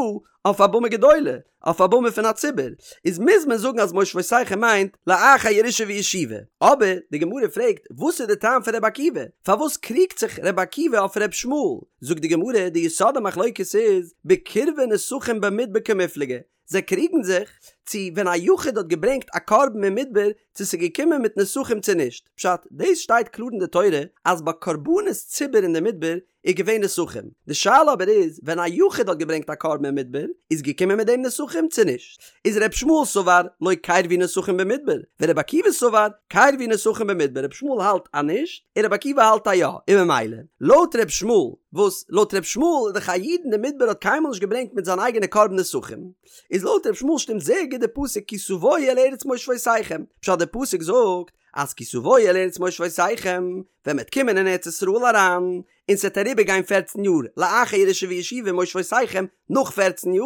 אויף א במה גדולה, אויף א במה פון א ציבור, איז מוז מען זאגן אז מושבותיכם מיינט לאחר ירושה וישיבה. אבער די גמרא פרעגט, וואס איז די טעם פון ר' עקיבא? פארוואס קריגט זיך ר' עקיבא אויף ר' ישמעאל? זאגט די גמרא, די יסוד המחלוקת איז, בקירבי נסכים במדבר קמיפלגי, זיי קריגן זיך צו ווען א יחיד האט געברענגט א קרבן אין מדבר צו ס'איז געקומען מיט נסכים צו נישט. פשט, דאס שטייט קלאר אין די תורה אז ביי קרבנות ציבור אין די מדבר איז געווען נסכים. די שאלה אבער איז ווען א יחיד האט געברענגט א קרבן אין מדבר איז געקומען מיט דעם נסכים צו נישט. איז ר' ישמעאל סבר לא קרבו נסכים במדבר, ור' עקיבא סבר קרבו נסכים במדבר, ר' ישמעאל האלט אז נישט און ר' עקיבא האלט אז יא, און ממילא לויט ר' ישמעאל וואס לויט ר' ישמעאל איז דאך א איד אין די מדבר האט קיינמאל נישט געברענגט מיט זיין אייגענע קרבן נסכים, איז לויט ר' ישמעאל שטימט זייער גוט די פסוק כי תבואו אל ארץ מושבותיכם, פשט די פסוק זאגט אז כי תבואו אל ארץ מושבותיכם, ווען מ'עט קומען אין ארץ ישראל אריין, און ס'עט אריבער גיין פערצן יאר לאחר ירושה וישיבה מושבותיכם, נאך פערצן יאר,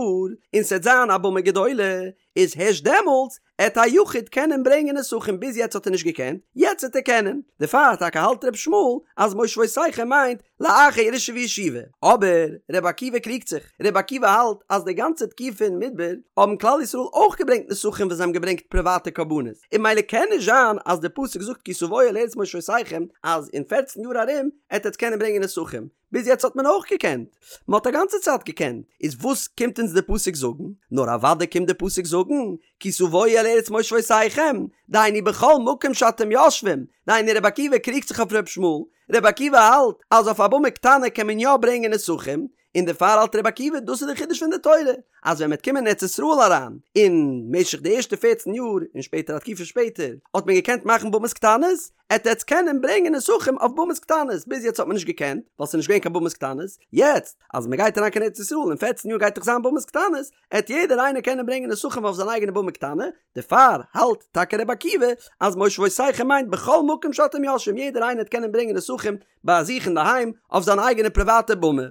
און ס'עט זיין א במה גדולה, איז הערשט דעמאלטס עט א יחיד קענען ברענגען נסכים ביז יעצט האט ער נישט געקענט, יעצט עט ער קענען, דערפאר טאקע האלט ר' ישמעאל אז מושבותיכם מיינט לאחר ירושה וישיבה, אבער ר' עקיבא קריגט זיך, ר' עקיבא האלט אז די גאנצע תקופה אין מדבר האבן כלל ישראל אויך געברענגט נסכים ווען זיי האבן געברענגט פריוואטע קרבנות, און ממילא קען נישט זיין אז די פסוק זאגט כי תבואו אל ארץ מושבותיכם אז אין פערצן יאר ארום עט עטס קענען ברענגען נסכים. ביז יעצט האט מען אויך געקענט, מען האט א גאנצע צייט געקענט, איז וואס קומט אונז די פסוק זאגן? נאר אוודאי קומט די פסוק זאגן, כי תבואו אל ארץ מושבותיכם, דהיינו בכל מקום שאתם יושבים, דהיינו רבי עקיבא קריגט זיך אויף רבי ישמעאל, רבי עקיבא האלט אז אויף א במה קטנה קען מען יא ברענגען נסכים, און דערפאר האלט רבי עקיבא דאס איז די חידוש פון די תורה, אז ווען מ'וועט קומען אין ארץ ישראל אריין, אין משך די ערשטע פערצן יאר, און שפעטער א תקופה שפעטער, האט מען געקענט מאכן במות קטנות, עט עטס קענען ברענגען נסכים אויף במות קטנות, ביז יעצט האט מען נישט געקענט, ווייל ס'איז נישט געווען קיין במות קטנות, יעצט אז מ'גייט אריין קיין ארץ ישראל אין פערצן יאר גייט דאך זיין במות קטנות, עט יעדער איינער קענען ברענגען נסכים אויף זיין אייגענע במה קטנה, דערפאר האלט טאקע רבי עקיבא אז מושבותיכם מיינט בכל מקום שאתם יושבים יעדער איינער עט קענען ברענגען נסכים ביי זיך אינדערהיים אויף זיין אייגענע פריוואטע במה,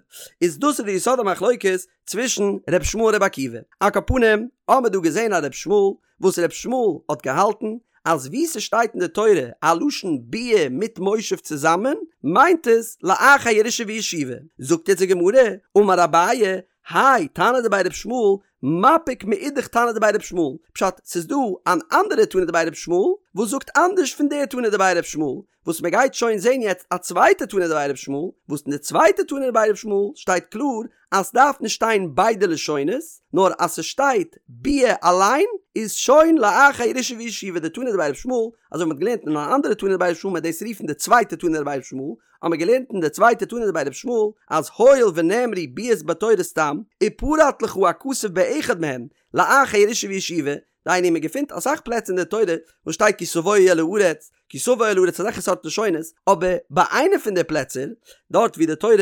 איז דאס איז די יסוד המחלוקת צווישן ר' ישמעאל און ר' עקיבא. על כל פנים האמער דא געזען א ר' ישמעאל וואס ר' ישמעאל האט געהאלטן. אז וואו ס'שטייט אין די תורה א לשון ביאה מיט מושב צוזאמען, מיינט עס לאחר ירושה וישיבה. זאגט יעצט די גמרא, אמר אביי, האי תנא דבי ר' ישמעאל, מפיק מאידך תנא דבי ר' ישמעאל, פשט, ס'איז דא אן אנדערע תנא דבי ר' ישמעאל וואס זאגט אנדערש פון די תנא דבי ר' ישמעאל, וואס מען גייט שוין זען יעצט א צווייטע תנא דבי ר' ישמעאל, וואס אין די צווייטע תנא דבי ר' ישמעאל שטייט קלאר אז סדארף נישט שטיין ביידע לשונות, נאר אז ס'שטייט ביאה אליין איז שוין לאחר ירושה וישיבה די תנא דבי ר' ישמעאל, אזוי ווי מ'האט געלערנט אין אן אנדערע תנא דבי ר' ישמעאל מ'עט דאס רופן די צווייטע תנא דבי ר' ישמעאל, האט מען געלערנט אין די צווייטע תנא דבי ר' ישמעאל אז הואיל ונאמרו ביאות בתורה סתם, ופרט לך הכתוב באחד מהן לאחר ירושה וישיבה, דהיינו מען געפינט אסאך פלעצער אין די תורה וואס שטייט כי תבואו אל הארץ, כי תבוא אל הארץ אזעלכע סארט לשונות, אבער ביי איינע פון די פלעצער, דארט ווי די תורה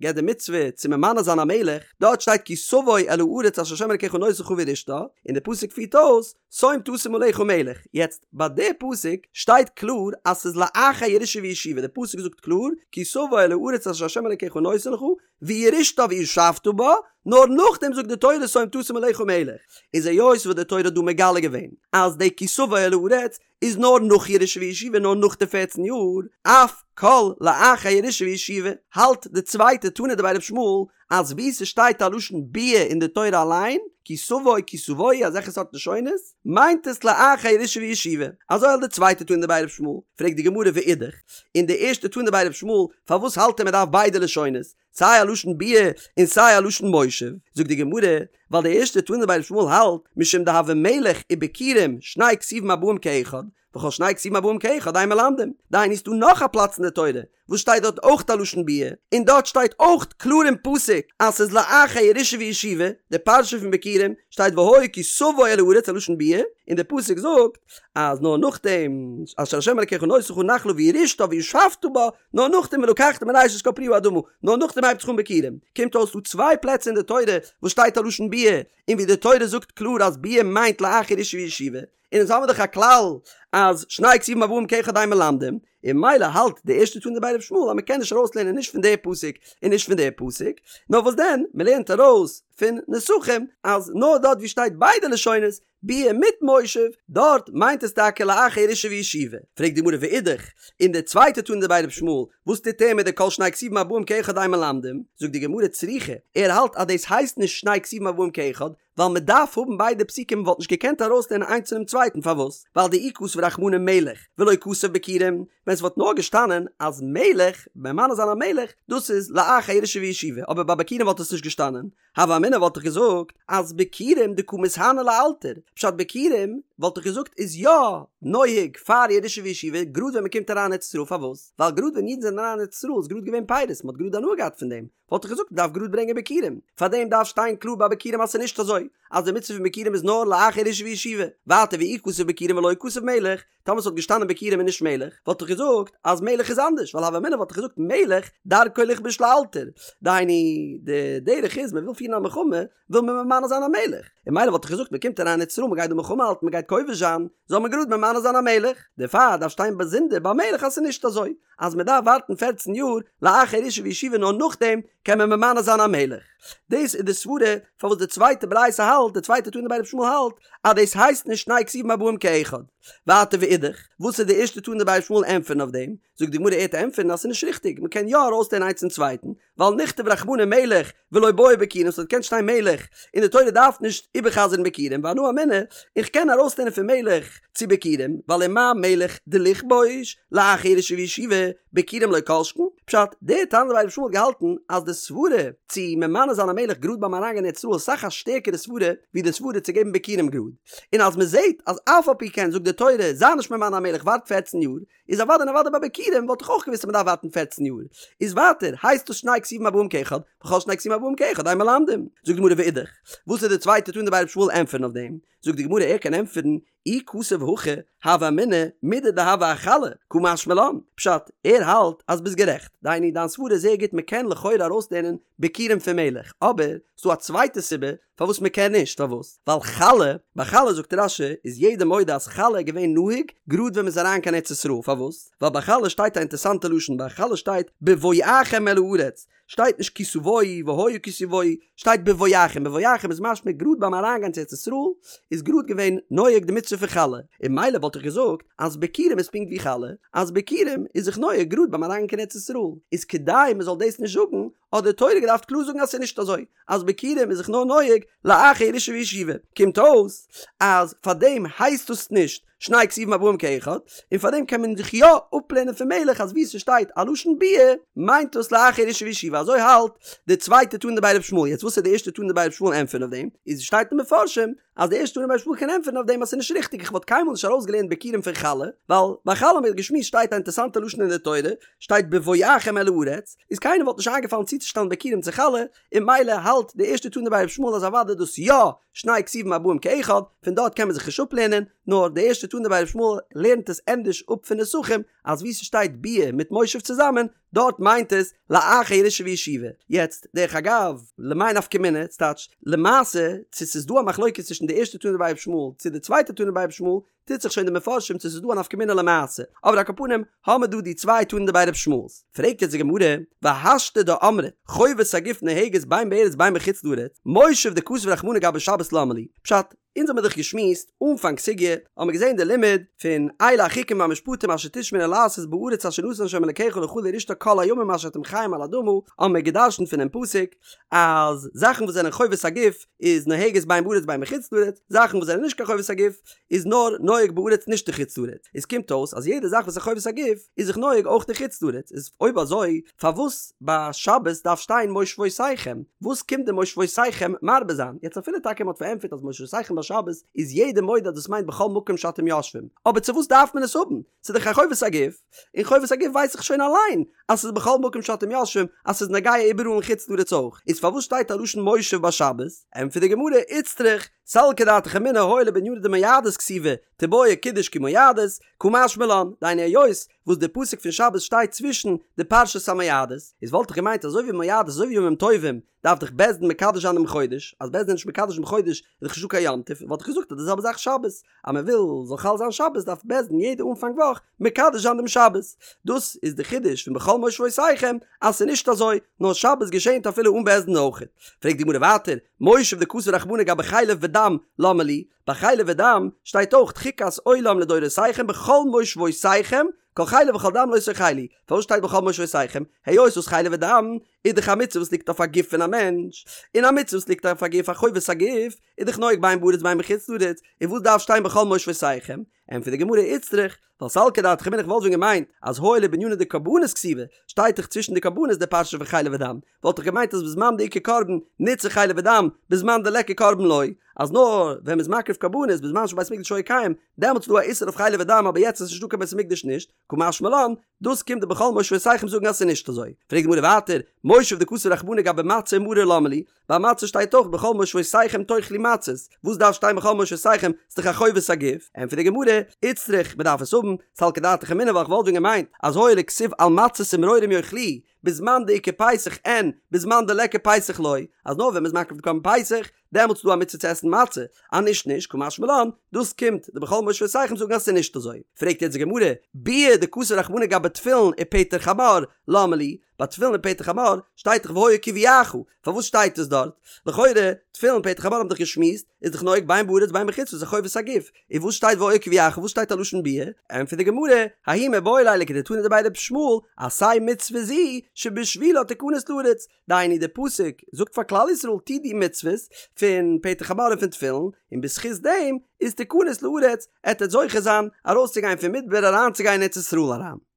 געבט די מצוה צו ממנה זיין א מלך, דארט שטייט כי תבוא אל הארץ אשר ה' אלקיך נותן לך וירשתה, און די פסוק פירט אויס, שום תשים עליך מלך, יעצט ביי די פסוק שטייט קלאר אז ס'איז לאחר ירושה וישיבה, די פסוק זאגט קלאר כי תבוא אל הארץ אשר ה' אלקיך נותן לך וירשתה וישבת בה, נאר נאכדעם זאגט די תורה שום תשים עליך מלך, איז היות וואס די תורה האט דא מגלה געווען אז די כי תבוא אל הארץ איז נאר נאך ירושה וישיבה נאר נאך די פערצן יאר, אף כל לאחר ירושה וישיבה, האלט די צווייטע תנא דבי ר' ישמעאל אז וואו ס'שטייט א לשון ביאה אין די תורה אליין, כי תבוא כי תבואו אזעלכע סארט לשונות, מיינט עס לאחר ירושה וישיבה. אזוי האלט די צווייטע תנא דבי ר' ישמעאל. פרעגט די גמרא ואידך, און די ערשטע תנא דבי ר' ישמעאל, פארוואס האלט ער מ'דארף ביידע לשונות, סיי א לשון ביאה און סיי א לשון מושב? זאגט די גמרא, ווייל די ערשטע תנא דבי ר' ישמעאל האלט, משום דהוה מלך וביכורים שני כתובים הבאים כאחד, וכל שני כתובים הבאים כאחד אין מלמדים. דהיינו ס'דא נאך א פלאץ אין די תורה וואס שטייט דארט אויך א לשון ביאה, און דארט שטייט אויך קלאר אין פסוק אז ס'איז לאחר ירושה וישיבה, די פרשה פון ביכורים שטייט והיה כי תבוא אל הארץ א לשון ביאה, און די פסוק זאגט אז נאר נאכדעם אשר ה' אלקיך נותן לך נחלה וירשתה וישבת בה, נאר נאכדעם ולקחת מראשית כל פרי האדמה, נאר נאכדעם הייבט זיך אן ביכורים. קומט אויס דא צוויי פלעצער אין די תורה וואס שטייט א לשון ביאה, און ווי די תורה זאגט קלאר אז ביאה מיינט לאחר ירושה וישיבה, און אונז האמיר דאך א כלל אז שני כתובים הבאים כאחד אין מלמדים, און ממילא האלט די ערשטע תנא דבי רבי ישמעאל אז מ'קען נישט ארויסלערנען נישט פון די פסוק און נישט פון די פסוק, נאר וואס דען מ'לערנט ארויס פון נסכים אז נאר דארט ווי שטייט ביידע לשונות ביאה מיט מושב דארט מיינט עס טאקע לאחר ירושה וישיבה. פרעגט די גמרא ואידך, און די צווייטע תנא דבי רבי ישמעאל וואס טוט ער מיט די כל שני כתובים הבאים כאחד אין מלמדים? זאגט די גמרא צריכא, ער האלט אז דאס הייסט נישט שני כתובים הבאים כאחד, ווייל מען דארף האבן ביידע פסוקים מען וואלט נישט געקענט ארויסלערנען איינס פונעם צווייטן פארוואס? ווייל דאי כתב רחמנא מלך ולא כתב ביכורים, ווען ס'וואלט נאר געשטאנען אז מלך, ממנה זיין א מלך, דאס איז לאחר ירושה וישיבה, אבער ביי ביכורים וואלט עס נישט געשטאנען, הוה אמינא וואלט איך געזאגט אז ביכורים דקא מיתהני לאלתר, פשט ביכורים וואלט איך געזאגט איז יא נוהג פאר ירושה וישיבה גראד ווען מען קומט אריין ארץ ישראל פארוואס? ווייל גראד ווען אידן זענען אריין ארץ ישראל איז גראד געווען פירות מען האט גראד הנאה געהאט פון דעם, וואלט איך געזאגט מ'דארף גראד ברענגען ביכורים, פארדעם דארף שטיין קלאר ביי ביכורים אז ס'איז נישט אזוי אז די מצוה פון ביכורים איז נאר לאחר ירושה וישיבה, ווייטער ואי כתב ביכורים ולא כתב מלך, טאמער ס'וואלט געשטאנען ביכורים און נישט מלך, וואלט איך געזאגט אז מלך איז אנדערש, ווייל הוה אמינא וואלט איך געזאגט מלך דרכו לכבוש לאלתר, דהיינו די דרך איז מ'וויל פירן א מלחמה וויל מען ממנה זיין א מלך, און ממילא וואלט איך געזאגט מ'קומט אריין ארץ ישראל מ'גייט דא מלחמה האלטן מ'גייט כובש זיין, זאל מען גראד ממנה זיין א מלך, דערפאר דארף שטיין באזונדער ביי מלך אז ס'איז נישט אזוי אז מ'דארף ווארטן פערצן יאר לאחר ירושה וישיבה נאר נאכדעם קען מען ממנה זיין א מלך. דאס איז די סברה פארוואס די צווייטע ברייתא האלט, די צווייטע תנא דבי רבי ישמעאל האלט, אז דאס הייסט נישט שני כתובים הבאים כאחד. ווייטער ואידך, וואס איז די ערשטע תנא דבי רבי ישמעאל ענטפערן אויף דעם? זאגט די גמרא ער וועט ענטפערן אז ס'איז נישט ריכטיג, מ'קען יא ארויסלערנען איינס צום צווייטן, ווייל נכתוב רחמנא מלך ולא בעי ביכורים ס'וואלט געקענט שטיין מלך און די תורה דארף נישט איבערחזר'ן ביכורים ואנא אמינא איך קען ארויסלערנען פון מלך צו ביכורים ווייל ומה מלך דלכבוש לאחר ירושה וישיבה ביכורים לא כל שכן פשט דער תנא דבי רבי ישמעאל האט געהאלטן אז די סברה צו ממנה זיין א מלך גראד ביים אריינגיין אין ארץ ישראל איז אסאך א שטערקערע סברה ווי די סברה צו געבן ביכורים גראד און אז מ'זעט אז אף על פי כן זאגט די תורה זיי נישט ממנה א מלך ווארט פערצן יאר איז אוודאי און אוודאי ביי ביכורים וואלט איך אויך געוואוסט אז מ'דארף ווארטן פערצן יאר. איז ווייטער, הייסט דאס שני כתובים הבאים כאחד, וכל שני כתובים הבאים כאחד אין מלמדים. זאגט די גמרא ואידך, וואס איז די צווייטע תנא דבי רבי ישמעאל ענטפערן אויף דעם? זאגט די גמרא ער קען ענטפערן, אי כתב הכי, הוה אמינא, מידי דהוה אחלה, קא משמע לן. פשט, ער האלט אז ביסט גערעכט, דהיינו דיין סברה איז זייער גוט מ'קען לכאורה ארויסלערנען ביכורים פון מלך, אבער ס'דא א צווייטע סיבה. פארוואס מען קען נישט, פארוואס? ווייל חלה, ביי חלה זאגט רש"י איז יעדער מודה אז חלה איז געווען נהוג גראד ווען מען איז אריין קיין ארץ ישראל, פארוואס? ווייל ביי חלה שטייט א אינטערסאנטע לשון, ביי חלה שטייט בבואכם אל הארץ, שטייט נישט כי תבואו והיה כי תבואו, שטייט בבואכם, בבואכם איז משמע גראד ביים אריינגיין צו ארץ ישראל איז גראד געווען נוהג די מצוה פון חלה, און ממילא וואלט איך געזאגט אז ביכורים איז פונקט ווי חלה, אז ביכורים איז זיך נוהג גראד ביים אריינגיין קיין ארץ ישראל, איז כדי מען זאל דאס נישט זאגן האט די תורה געדארפט קלאר זאגן אז ס'איז נישט אזוי אז ביכורים איז זיך נאר נוהג לאחר ירושה וישיבה, קומט אויס אז פאר דעם הייסט עס נישט שני כתובים הבאים כאחד, און פאר דעם קען מען זיך יא אפלערנען פון מלך אז וואו ס'שטייט א לשון ביאה מיינט דאס לאחר ירושה וישיבה, אזוי האלט די צווייטע תנא דבי ר' ישמעאל, יעצט וואס איז די ערשטע תנא דבי ר' ישמעאל ענטפערן אויף דעם, איז שטייט אין מפרשים אז די ערשטע תנא דבי ר' ישמעאל קען ענטפערן אויף דעם אז ס'איז נישט ריכטיג איך וואלט קיינמאל נישט ארויסגעלערנט ביכורים פון חלה, ווייל ביי חלה האבן מיר געשמועסט שטייט א אינטערסאנטע לשון אין די תורה, שטייט בבואכם אל הארץ, איז קיינער וואלט נישט איינגעפאלן צוצושטעלן ביכורים צו חלה, און ממילא האלט די ערשטע תנא דבי ר' ישמעאל אז אוודאי דאס יא שני כתובים הבאים כאחד, פון דארט קען מען זיך נישט אפלערנען, נאר די ערשטע תנא דבי ר' ישמעאל לערנט עס ענדערש אפ פון נסכים, אז וואו ס'שטייט ביאה מיט מושב צוזאמען, דארט מיינט עס לאחר ירושה וישיבה. יעצט, דרך אגב, למאי נפקא מינה, ס'טייטש, למעשה, צו ס'איז דא א מחלוקת צווישן די ערשטע תנא דבי ר' ישמעאל צו די צווייטע תנא דבי ר' ישמעאל, טוט זיך שוין די מפרשים צו ס'איז דא א נפקא מינה למעשה, אבער על כל פנים האמער דא די צוויי תנא דבי ר' ישמעאל'ס. פרעגט יעצט די גמרא, והשתא דאמרת, חובת הגוף נוהגת בין בארץ בין בחוץ לארץ, מושב דכתב רחמנא גבי שבת למה לי? פשט, אונז האמיר דאך געשמועסט אנפאנג סוגיא, האמיר געזען די לימוד פון אלה החוקים והמשפטים אשר תשמרון לעשות בארץ אשר נתן ה' אלקיך לך לרשתה כל הימים אשר אתם חיים על האדמה, האמיר גע'דרש'נט פונעם פסוק אז זאכן וואס זענען חובת הגוף איז נוהגת בין בארץ בין בחוץ לארץ, זאכן וואס זענען נישט קיין חובת הגוף איז נאר נוהג בארץ נישט אין חוץ לארץ, איז קומט אויס אז יעדע זאך וואס איז חובת הגוף איז זיך נוהג אויך אין חוץ לארץ, איז אויב אזוי פארוואס ביי שבת דארף שטיין מושבותיכם? וואס קומט די מושבותיכם מרבה זיין? יעצט אפילו טאקע מען האט פארענטפערט אז מושבותיכם ביי שבת איז יעדער מודה אז דאס מיינט בכל מקום שאתם יושבים, אבער צו וואס דארף מען עס האבן? ס'איז דאך א חובת הגוף, און חובת הגוף ווייס איך שוין אליין אז ס'איז בכל מקום שאתם יושבים אז ס'איז נוגע איבעראל אין חוץ לארץ אויך, איז פארוואס שטייט א לשון מושב ביי שבת? ענטפערט די גמרא, איצטריך, סלקא דעתך אמינא הואיל ובענינא דמועדות כתיבי, תיבעי קידוש כי מועדות, קא משמע לן, דהיינו היות וואס די פסוק פון שבת שטייט צווישן די פרשת המועדות, איז וואלט איך געמיינט אזוי ווי מועדות אזוי ווי ימים טובים דארף דאך בית דין מקדש זיין דעם חודש, אז בית דין איז נישט מקדש דעם חודש איז דאך נישטא קיין יום טוב, וואלט איך געזאגט אז די זעלבע זאך שבת, אז מען וויל זאל חל זיין שבת דארף בית דין יעדע אנפאנג וואך מקדש זיין דעם שבת, דאס איז די חידוש פון בכל מושבותיכם אז ס'איז נישט אזוי, נאר שבת געשענט אפילו אן בית דין אויכעט. פרעגט די גמרא ווייטער, מושב דכתב רחמנא גבי חלב ודם למה לי, ביי חלב ודם שטייט אויך חוקת עולם לדורותיכם בכל מושבותיכם כל חלב וכל דם לא תאכלו, פארוואס שטייט בכל מושבותיכם? היות וואס חלב ודם איז דאך א מצוה וואס ליגט אויף א גוף פון א מענטש, און א מצוה וואס ליגט אויף א גוף א חובת הגוף איז דאך נוהג בין בארץ בין בחוץ לארץ, און וואס דארף שטיין בכל מושבותיכם? ענטפערט די גמרא איצטריך, ווייל סלקא דעתך אמינא איך וואלט ווען געמיינט אז הואיל ובענינא דקרבנות כתיבי, שטייט דאך צווישן די קרבנות די פרשה פון חלב ודם, וואלט איך געמיינט אז בזמן דאיכא קרבן נצרך חלב ודם, בזמן דליכא קרבן לא, אז נאר ווען מ'איז מקריב קרבנות בזמן שבית המקדש היה קיים, דעמאלטס איז דא א איסור אויף חלב ודם אבער יעצט איז נישטא קיין בית המקדש נישט, קא משמע לן, דאס קומט די בכל מושבותיכם זאגן אז ס'איז נישט אזוי. פרעגט די גמרא ווייטער, מושב דכתב רחמנא גבי מצה ומרור למה לי, ביי מצה שטייט אויך בכל מושבותיכם תאכלו מצות, וואס דארף שטיין בכל מושבותיכם, ס'איז דאך א חובת הגוף, ענטפערט די גמרא, איצטריך, מ'דארף עס האבן, סלקא דעתך אמינא ווייל כ'וואלט ווען געמיינט אז הואיל וכתיב על מצות ומרורים יאכלוהו, בזמן דאיכא פסח אין, בזמן דליכא פסח לא, אז נאר ווען מ'איז מקריב די קרבן פסח, דעמאלטס איז דא א מצוה צו עסן מצה, אז נישט נישט, קא משמע לן, דאס קומט די בכל מושבותיכם זאגן אז ס'איז נישט אזוי. פרעגט יעצט די גמרא, ביאה דכתב רחמנא גבי תפילין ופטר חמור, למה לי, ביי תפילין און פטר חמור שטייט דאך והיה כי יביאך, פארוואס שטייט עס דארט? לכאורה, תפילין און פטר חמור האבן דאך געשמועסט, איז דאך נוהג בין בארץ בין בחוץ לארץ איז א חובת הגוף, און וואס שטייט והיה כי יביאך וואס שטייט א לשון ביאה? ענטפערט די גמרא, ההוא מיבעי ליה לכדתנא דבי ר' ישמעאל, עשה מצוה זו שבשבילה תכנס לארץ, דהיינו די פסוק זאגט פאר כלל ישראל טו די מצוות פון פטר חמור און פון תפילין, און בזכות דעם איז תכנס לארץ, עט עטס זוכה זיין ארויסצוגיין פון מדבר אריינצוגיין אין ארץ ישראל אריין.